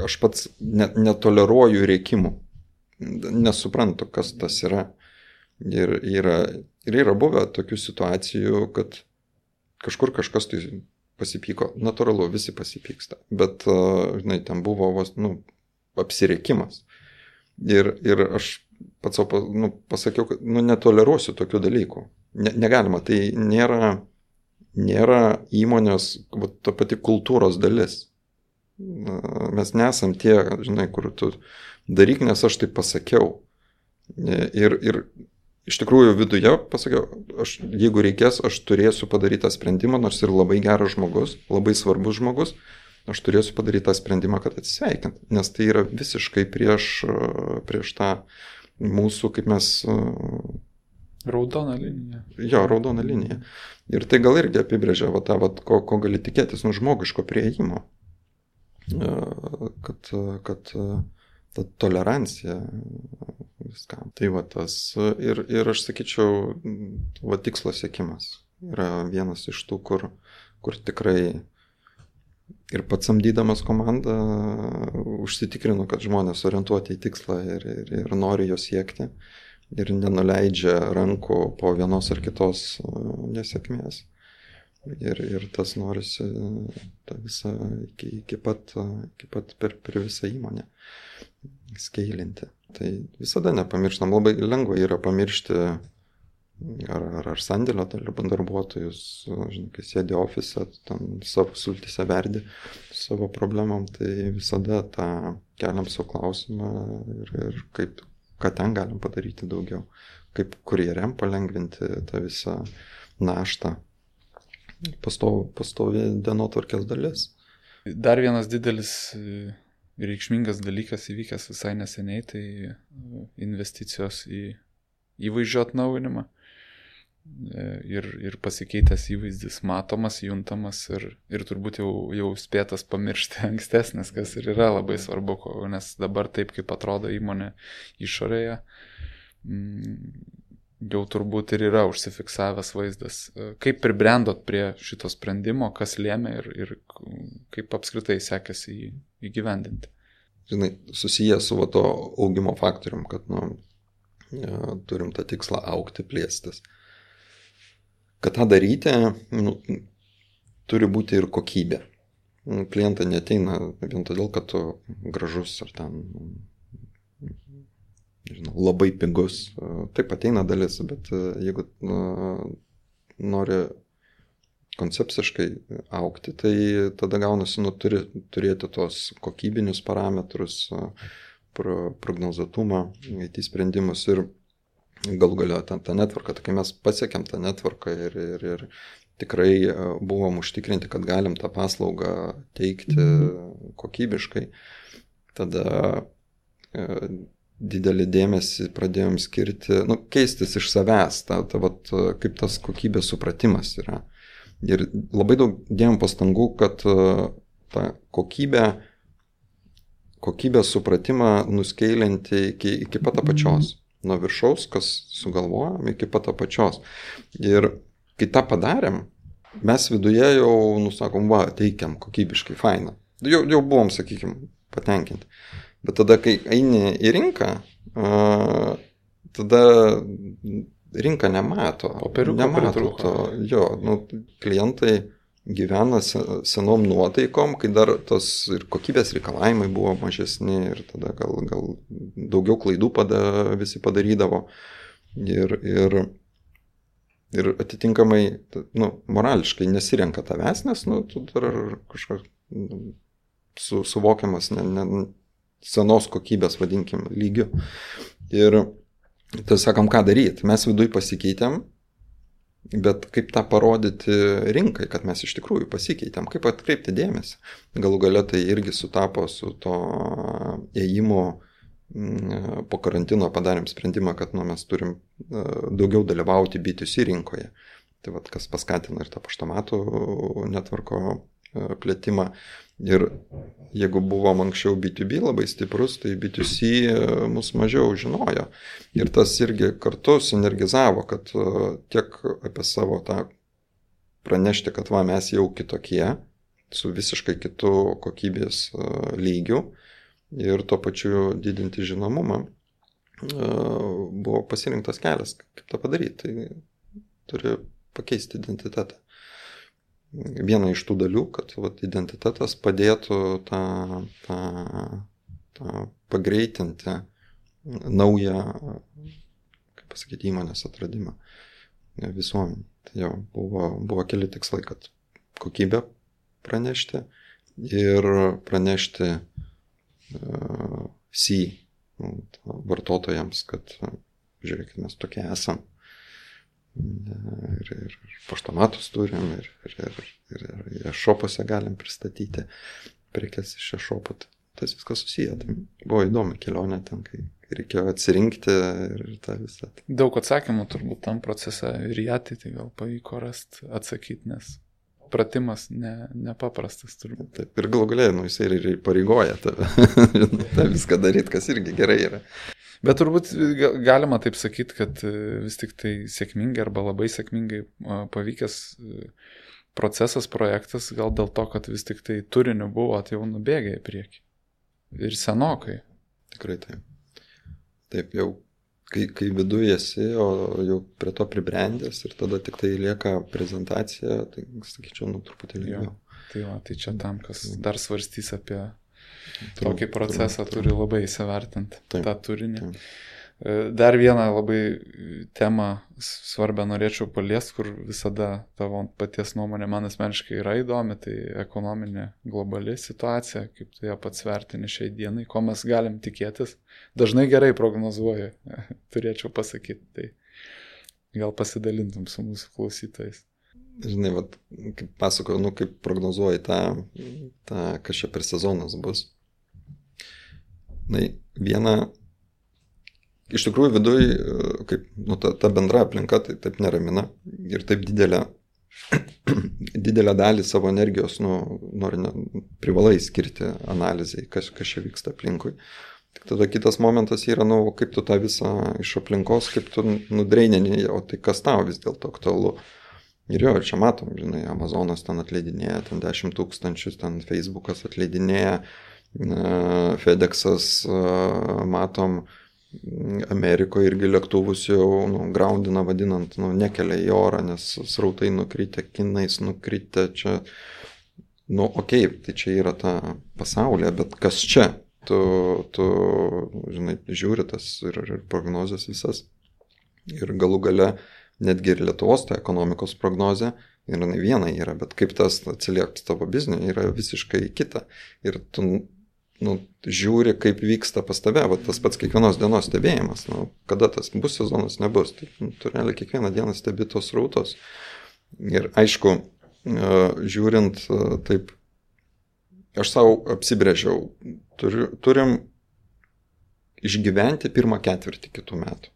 aš pats netoleruoju rėkimų. Nesuprantu, kas tas yra. Ir yra buvę tokių situacijų, kad kažkur kažkas tai pasipyko. Natūralu, visi pasipyksta. Bet, ten buvo apsirėkimas. Ir aš pats pasakiau, kad netoleruosiu tokių dalykų. Negalima. Tai nėra įmonės ta pati kultūros dalis. Mes nesam tie, kur tu daryk, nes aš tai pasakiau. Ir iš tikrųjų viduje pasakiau, jeigu reikės, aš turėsiu padaryti tą sprendimą, nors ir labai geras žmogus, labai svarbus žmogus, aš turėsiu padaryti tą sprendimą, kad atsisveikint. Nes tai yra visiškai prieš tą mūsų, kaip mes... Raudona linija. Jo, raudona linija. Ir tai gal irgi apibrėžia ko gali tikėtis žmogiško priėjimo. Kad ta tolerancija viskam. Tai tas ir aš sakyčiau, tikslo siekimas yra vienas iš tų, kur tikrai ir pats samdydamas komandą užsitikrinu, kad žmonės orientuoti į tikslą ir nori jo siekti ir nenuleidžia rankų po vienos ar kitos nesėkmės. Ir tas norisi tą visą iki pat per visą įmonę skeilinti. Tai visada nepamirštam, labai lengva yra pamiršti ar sandėlio darbuotojus, kai sėdi ofise, ten savo sultyse verdi savo problemom, tai visada tą keliam savo klausimą ir ką ten galim padaryti daugiau, kaip kurjeriam palengvinti tą visą naštą. Pastovi dienotvarkės dalis. Dar vienas didelis reikšmingas dalykas įvykęs visai neseniai, tai investicijos į įvaizdžio atnaujinimą ir pasikeitęs įvaizdis matomas, juntamas ir turbūt jau spėtas pamiršti ankstesnis, kas ir yra labai svarbu, nes dabar taip, kaip atrodo įmonė išorėje, jau turbūt ir yra užsifiksavęs vaizdas. Kaip pribrendot prie šito sprendimo, kas lėmė ir kaip apskritai sekėsi jį įgyvendinti? Žinai, susijęs su to augimo faktorium, kad turim tą tikslą augti, plėstis. Kad tą daryti, turi būti ir kokybė. Klientai neateina vien todėl, kad tu gražus ar ten labai pigus. Taip ateina dalis, bet jeigu nori koncepciškai augti, tai tada gaunasi, turi turėti tos kokybinius parametrus, prognozuotumą, IT sprendimus ir galų galio tą netvarką. Tai kai mes pasiekėm tą netvarką ir tikrai buvom užtikrinti, kad galim tą paslaugą teikti kokybiškai, tada didelį dėmesį pradėjom skirti, keistis iš savęs, kaip tas kokybės supratimas yra. Ir labai daug dėjom pastangų, kad tą kokybės supratimą nuskeilinti iki pat apačios. Nuo viršaus, kas sugalvojom, iki pat apačios. Ir kai tą padarėm, mes viduje jau, nusakom, va, teikiam kokybiškai, faina. Jau buvom, sakykime, patenkinti. Bet tada, kai eini į rinką, tada rinka nemato. Nemato to. Jo, klientai gyvena senom nuotaikom, kai dar tos ir kokybės reikalavimai buvo mažesni ir tada gal daugiau klaidų visi padarydavo. Ir atitinkamai, morališkai nesirenka tavęs, nes, tu dar kažkas suvokiamas senos kokybės, vadinkim, lygiu. Ir tai sakom, ką daryti. Mes viduj pasikeitėm, bet kaip tą parodyti rinkai, kad mes iš tikrųjų pasikeitėm, kaip atkreipti dėmesį. Galų gale tai irgi sutapo su to ėjimu po karantino, padarėm sprendimą, kad mes turim daugiau dalyvauti B2C rinkoje. Tai kas paskatino ir tą paštomatų netvarko plėtimą. Ir jeigu buvom anksčiau B2B labai stiprus, tai B2C mus mažiau žinojo. Ir tas irgi kartu sinergizavo, kad tiek apie savo tą pranešti, kad mes jau kitokie, su visiškai kitu kokybės lygiu ir tuo pačiu didinti žinomumą, buvo pasirinktas kelias, kaip tą padaryti. Tai turi pakeisti identitetą. Viena iš tų dalių, kad identitetas padėtų tą pagreitinti naują, kaip pasakyti, įmonės atradimą visuomenį. Tai jau buvo keli tikslai, kad kokybę pranešti ir pranešti vartotojams, kad žiūrėkit, mes tokie esam. Ir paštomatus turim, ir šopose galim pristatyti prekes iš šopų. Tas viskas susiję. Tai buvo įdomi kelionė ten, kai reikėjo atsirinkti ir tą visą. Daug atsakymų turbūt tam procese ir į ateitį gal pavyko rasti, atsakyti, nes pratimas nepaprastas turbūt. Taip, ir galų galėjai, jisai ir pareigoja tave tą viską daryti, kas irgi gerai yra. Bet turbūt galima taip sakyti, kad vis tik tai sėkmingai arba labai sėkmingai pavykęs procesas, projektas, gal dėl to, kad vis tik tai turiniu buvo jau nubėgę į priekį. Ir senokai. Tikrai taip. Taip, jau kai viduje esi, o jau prie to pribrendęs ir tada tik tai lieka prezentacija, tai sakyčiau, truputį ilgiau. Tai čia tam, kas dar svarstys apie tokį procesą, turi labai įsivertinti tą turinį. Dar vieną labai temą svarbę norėčiau paliesti, kur visada tavo paties nuomonė man asmeniškai yra įdomi, tai ekonominė globali situacija, kaip tu ją pats vertini šiai dienai, ko mes galim tikėtis. Dažnai gerai prognozuoju, turėčiau pasakyti, tai gal pasidalintum su mūsų klausytojais. Žinai, kaip pasakoju, kaip prognozuoji tą, kas čia per sezonas bus. Viena, iš tikrųjų viduj, kaip ta bendra aplinka tai taip neramina ir taip didelę dalį savo energijos privalai skirti analizai, kas čia vyksta aplinkui. Tik tada kitas momentas yra, kaip tu tą visą iš aplinkos, kaip tu nudreinini, o tai kas tau vis dėlto aktualu. Ir jo, čia matom, žinai, Amazonas ten atleidinėja, ten 10 000, ten Facebookas atleidinėja, FedExas, matom, Amerikoje irgi lėktuvus jau groundina, vadinant, nekelia į orą, nes srautai nukritę, kinais nukritę, čia, tai čia yra ta pasaulyje, bet kas čia? Tu žinai, žiūri tas ir prognozes visas. Ir galų gale netgi ir Lietuvos ta ekonomikos prognozė, ir viena yra, bet kaip tas atsilieps tavo bizniui, yra visiškai kita. Ir tu žiūri, kaip vyksta pas tave, tas pats kiekvienos dienos stebėjimas, kada tas bus sezonas, nebus. Tai tu realiai kiekvieną dieną stebi tos srautos. Ir aišku, žiūrint taip, aš savo apsibrėžiau, turim išgyventi pirmą ketvirtį kitų metų.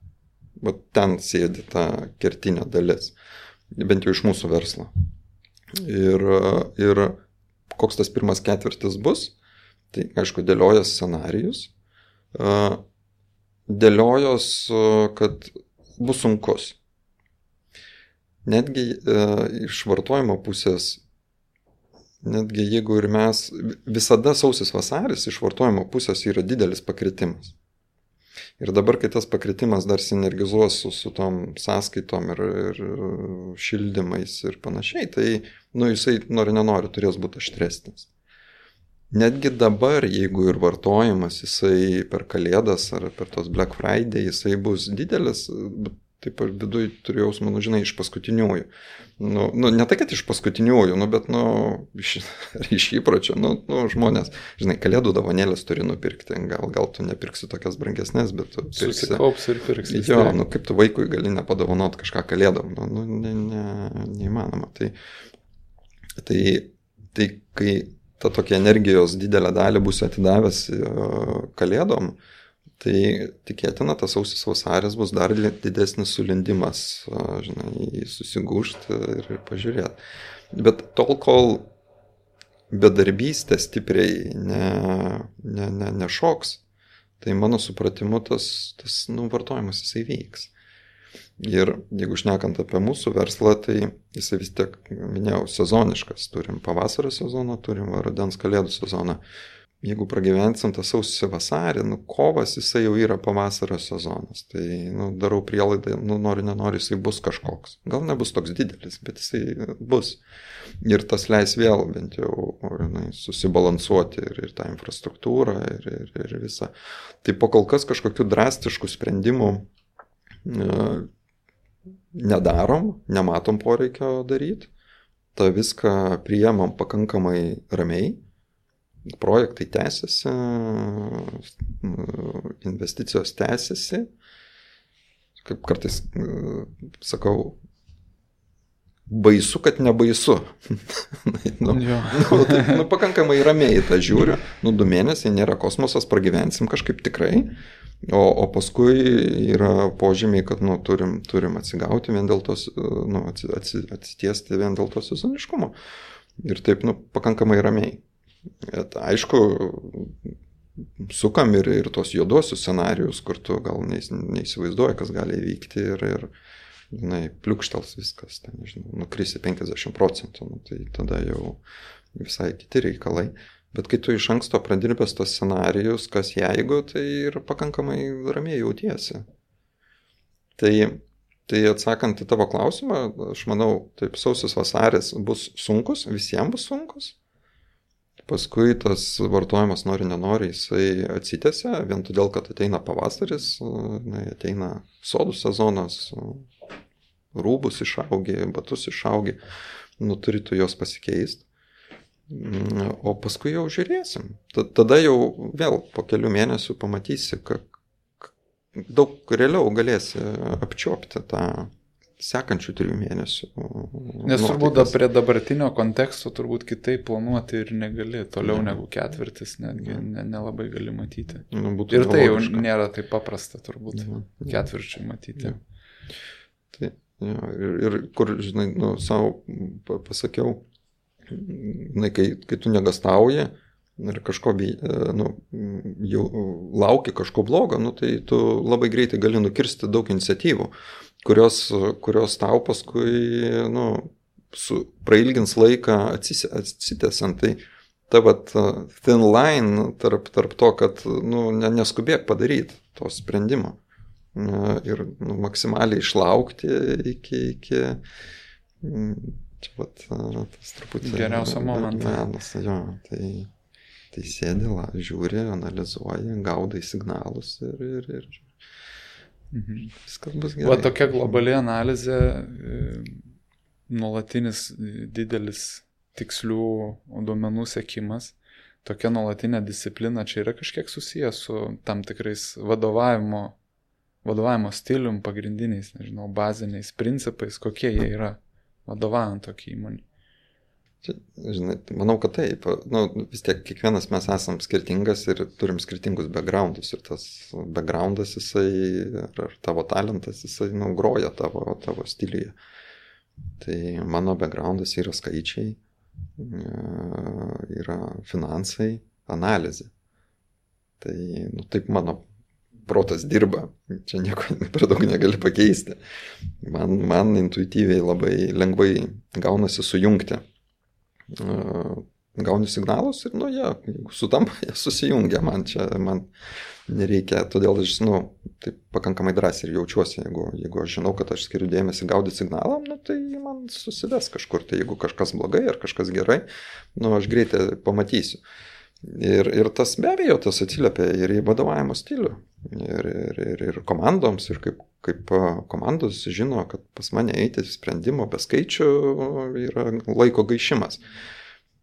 Ten sėdi ta kertinė dalis, bent jau iš mūsų verslo. Ir koks tas pirmas ketvirtis bus, tai aišku, dėliojas scenarijus, dėliojos, kad bus sunkus. netgi iš vartojimo pusės, netgi jeigu ir mes, visada sausis vasaris iš vartojimo pusės yra didelis pakritimas. Ir dabar, kai tas pakritimas dar sinergizuos su tom sąskaitom ir šildymais ir panašiai, tai, jisai nori nenori turės būti aštresnis. Netgi dabar, jeigu ir vartojimas, jisai per Kalėdas ar per tos Black Friday, jisai bus didelis, taip aš viduj turiu jausmą, iš paskutiniųjų. Ne tai, kad iš paskutiniųjų, bet iš įpročio, žmonės, Kalėdų dovanėlės turi nupirkti, gal tu nepirksi tokias brangesnės, bet tu pirksi. Susikaups ir pirksi. Jo, kaip tu vaikui gali nepadovanot kažką Kalėdom, neįmanoma. Tai kai ta tokia energijos didelę dalį bus atidavęs Kalėdom, tai tikėtina, tas sausis vasaris bus dar didesnis sulindimas, susigūžti ir pažiūrėti. Bet tol, kol bedarbystė stipriai nešoks, tai mano supratimu tas vartojimas jisai vyks. Ir jeigu šnekant apie mūsų verslą, tai jisai vis tiek, minėjau, sezoniškas. Turim pavasario sezoną, turim rudens Kalėdų sezoną. Jeigu pragyvensim tą sausį vasarį, kovas jisai jau yra pavasario sezonas. Tai darau prielaidą, nori, nenori, jisai bus kažkoks. Gal nebus toks didelis, bet jisai bus. Ir tas leis vėl bent jau susibalansuoti ir tą infrastruktūrą ir visą. Tai po kol kas kažkokių drastiškų sprendimų nedarom, nematom poreikio daryti. Ta viską priemam pakankamai ramiai. Projektai tęsiasi, investicijos tęsiasi. Kaip kartais sakau, baisu, kad nebaisu. Pakankamai ramiai tą žiūriu. 2 mėnesiai nėra kosmosas, pragyvensim kažkaip tikrai. O paskui yra požymiai, kad turim atsigauti vien dėl tos, atsitiesti vien dėl to sezoniškumo. Ir taip, pakankamai ramiai. Bet, aišku, sukam ir tos juodosius scenarijus, kur tu gal neįsivaizduoji, kas gali įvykti ir pliukštels viskas, nukrisi 50%, tai tada jau visai kiti reikalai. Bet kai tu iš anksto pradirbęs tos scenarijus, kas jeigu, tai ir pakankamai ramiai jautiesi. Tai atsakant į tavo klausimą, aš manau, taip, sausis vasaris bus sunkus, visiems bus sunkus. Paskui tas vartojimas nori, nenori, jisai atsitęsia, vien todėl, kad ateina pavasaris, ateina sodų sezonas, rūbus išaugi, batus išaugi, turi tu juos pasikeisti. O paskui jau žiūrėsim. Tada jau vėl po kelių mėnesių pamatysi, kad daug realiau galėsi apčiuopti tą sekančių 3 mėnesių. Nes turbūt prie dabartinio konteksto turbūt kitaip planuoti ir negali, toliau negu ketvirtis, netgi nelabai gali matyti. Ir tai jau nėra taip paprasta turbūt ketvirčiai matyti. Ir kur, savo pasakiau, kai tu negastauji ir kažko jau lauki kažko blogo, tai tu labai greitai gali nukirsti daug iniciatyvų, kurios tau paskui prailgins laiką atsitęsiant. Tai ta thin line tarp to, kad neskubėk padaryti to sprendimo ir maksimaliai išlaukti iki čia tas truputį geriausio momento. Tai sėdi, žiūri, analizuoji, gaudai signalus ir viskas bus gerai. Tokia globali analizė, nuolatinis didelis tikslių duomenų sekimas, tokia nuolatinė disciplina, čia yra kažkiek susijęs su tam tikrais vadovavimo stilium, pagrindiniais, baziniais principais, kokie jie yra vadovaujant tokį įmonį. Manau, kad taip. Vis tiek kiekvienas mes esam skirtingas ir turim skirtingus backgroundus. Ir tas backgroundas, jisai, ar tavo talentas, jisai groja tavo stiliuje. Tai mano backgroundas yra skaičiai, yra finansai, analizė. Tai taip mano protas dirba, čia nieko per daug negali pakeisti. Man intuityviai labai lengvai gaunasi sujungti. Gauni signalus ir, jeigu sutampa, jie susijungia, man nereikia, todėl aš, taip pakankamai drąsiai ir jaučiuosi, jeigu aš žinau, kad aš skiriu dėmesį gaudyti signalą, tai man susives kažkur, tai jeigu kažkas blogai ar kažkas gerai, aš greitai pamatysiu. Ir tas be abejo, tas atsiliepia ir į vadovavimo stilių, ir komandoms, ir kaip komandos žino, kad pas mane eiti sprendimo be skaičių yra laiko gaišimas.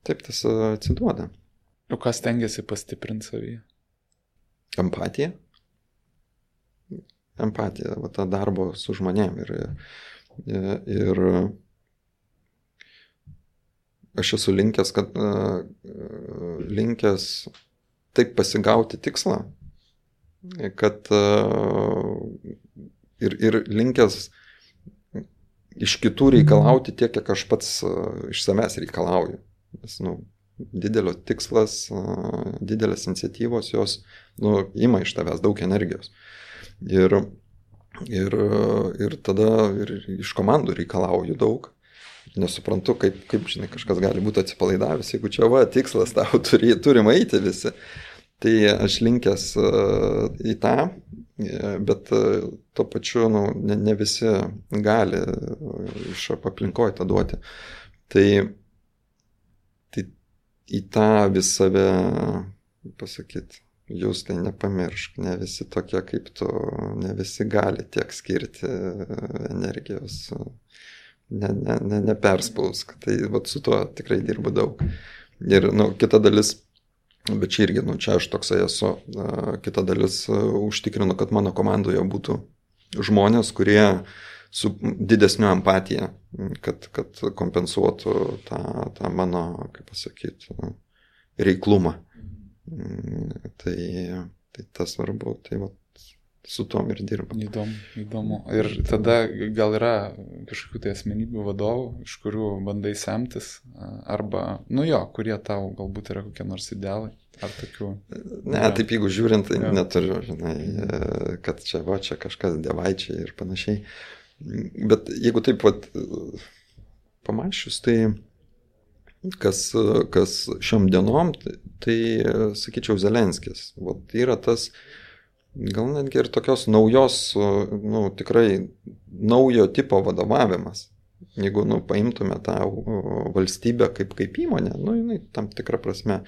Taip tas atsiduoda. O kas stengiasi pastiprinti savyje? Empatija. Empatija, ta darbo su žmonėm. Ir aš esu linkęs taip pasigauti tikslą, kad ir linkęs iš kitų reikalauti tiek, kiek aš pats iš savęs reikalauju. Nes, didelio tikslas, didelės iniciatyvos, jos, ima iš tavęs daug energijos. Ir tada ir iš komandų reikalauju daug. Nesuprantu, kaip žinai, kažkas gali būti atsipalaidavęs, jeigu čia tikslas tau turim eiti visi. Tai aš linkęs į tą, bet tuo pačiu, ne visi gali iš aplinkoje tą duoti. Tai į tą vis save pasakyti, jūs tai nepamiršk, ne visi tokie kaip tu, ne visi gali tiek skirti energijos, neperspausk. Tai su tuo tikrai dirbu daug. Ir kita dalis, bet čia irgi, čia aš toksai esu, kita dalis užtikrinu, kad mano komandoje būtų žmonės, kurie su didesniu empatija, kad kompensuotų tą mano, kaip pasakyti, reiklumą. Tai tas svarbu, tai su tom ir dirba. Įdomu. Ir tada gal yra kažkokių tai asmenybių vadovų, iš kurių bandai semtis, arba, kurie tau galbūt yra kokie nors idealai, ar tokių? Ne, taip jeigu žiūrint, tai neturiu, žinai, kad čia kažkas dievaičiai ir panašiai. Bet jeigu taip pamačius, tai kas šiom dienom, tai sakyčiau Zelenskis. Yra tas, gal netgi ir tokios naujos, tikrai naujo tipo vadovavimas. Jeigu paimtume tą valstybę kaip įmonę, tam tikrą prasme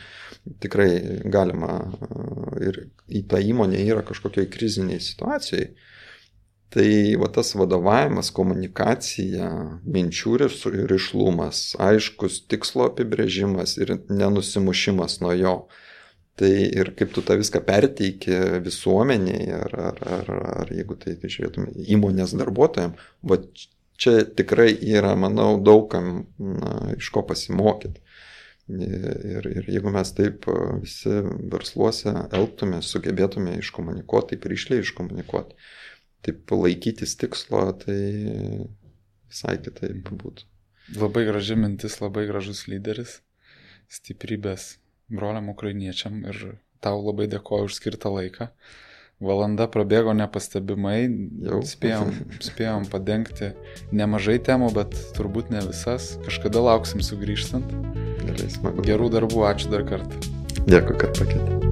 tikrai galima ir į tą įmonę yra kažkokioj kriziniai situacijai. Tai tas vadovavimas, komunikacija, minčių rišlumas, aiškus tikslo apibrėžimas ir nenusimušimas nuo jo. Tai ir kaip tu tą viską perteiki visuomeniai, ar jeigu tai žiūrėtume įmonės darbuotojams, čia tikrai yra, manau, daugam iš ko pasimokyti. Ir jeigu mes taip visi versluose elgtume, sugebėtume iškomunikuoti, taip ryšliai iškomunikuoti, taip laikytis tikslo, tai visai kitaip būtų. Labai graži mintis, labai gražus lyderis, stiprybės broliam ukrainiečiam ir tau labai dėkoju už skirtą laiką. Valanda prabėgo nepastebimai, spėjom padengti nemažai temų, bet turbūt ne visas. Kažkada lauksim sugrįžtant. Gerai, smagu. Gerų darbų, ačiū dar kartą. Dėkui, kad pakvietei.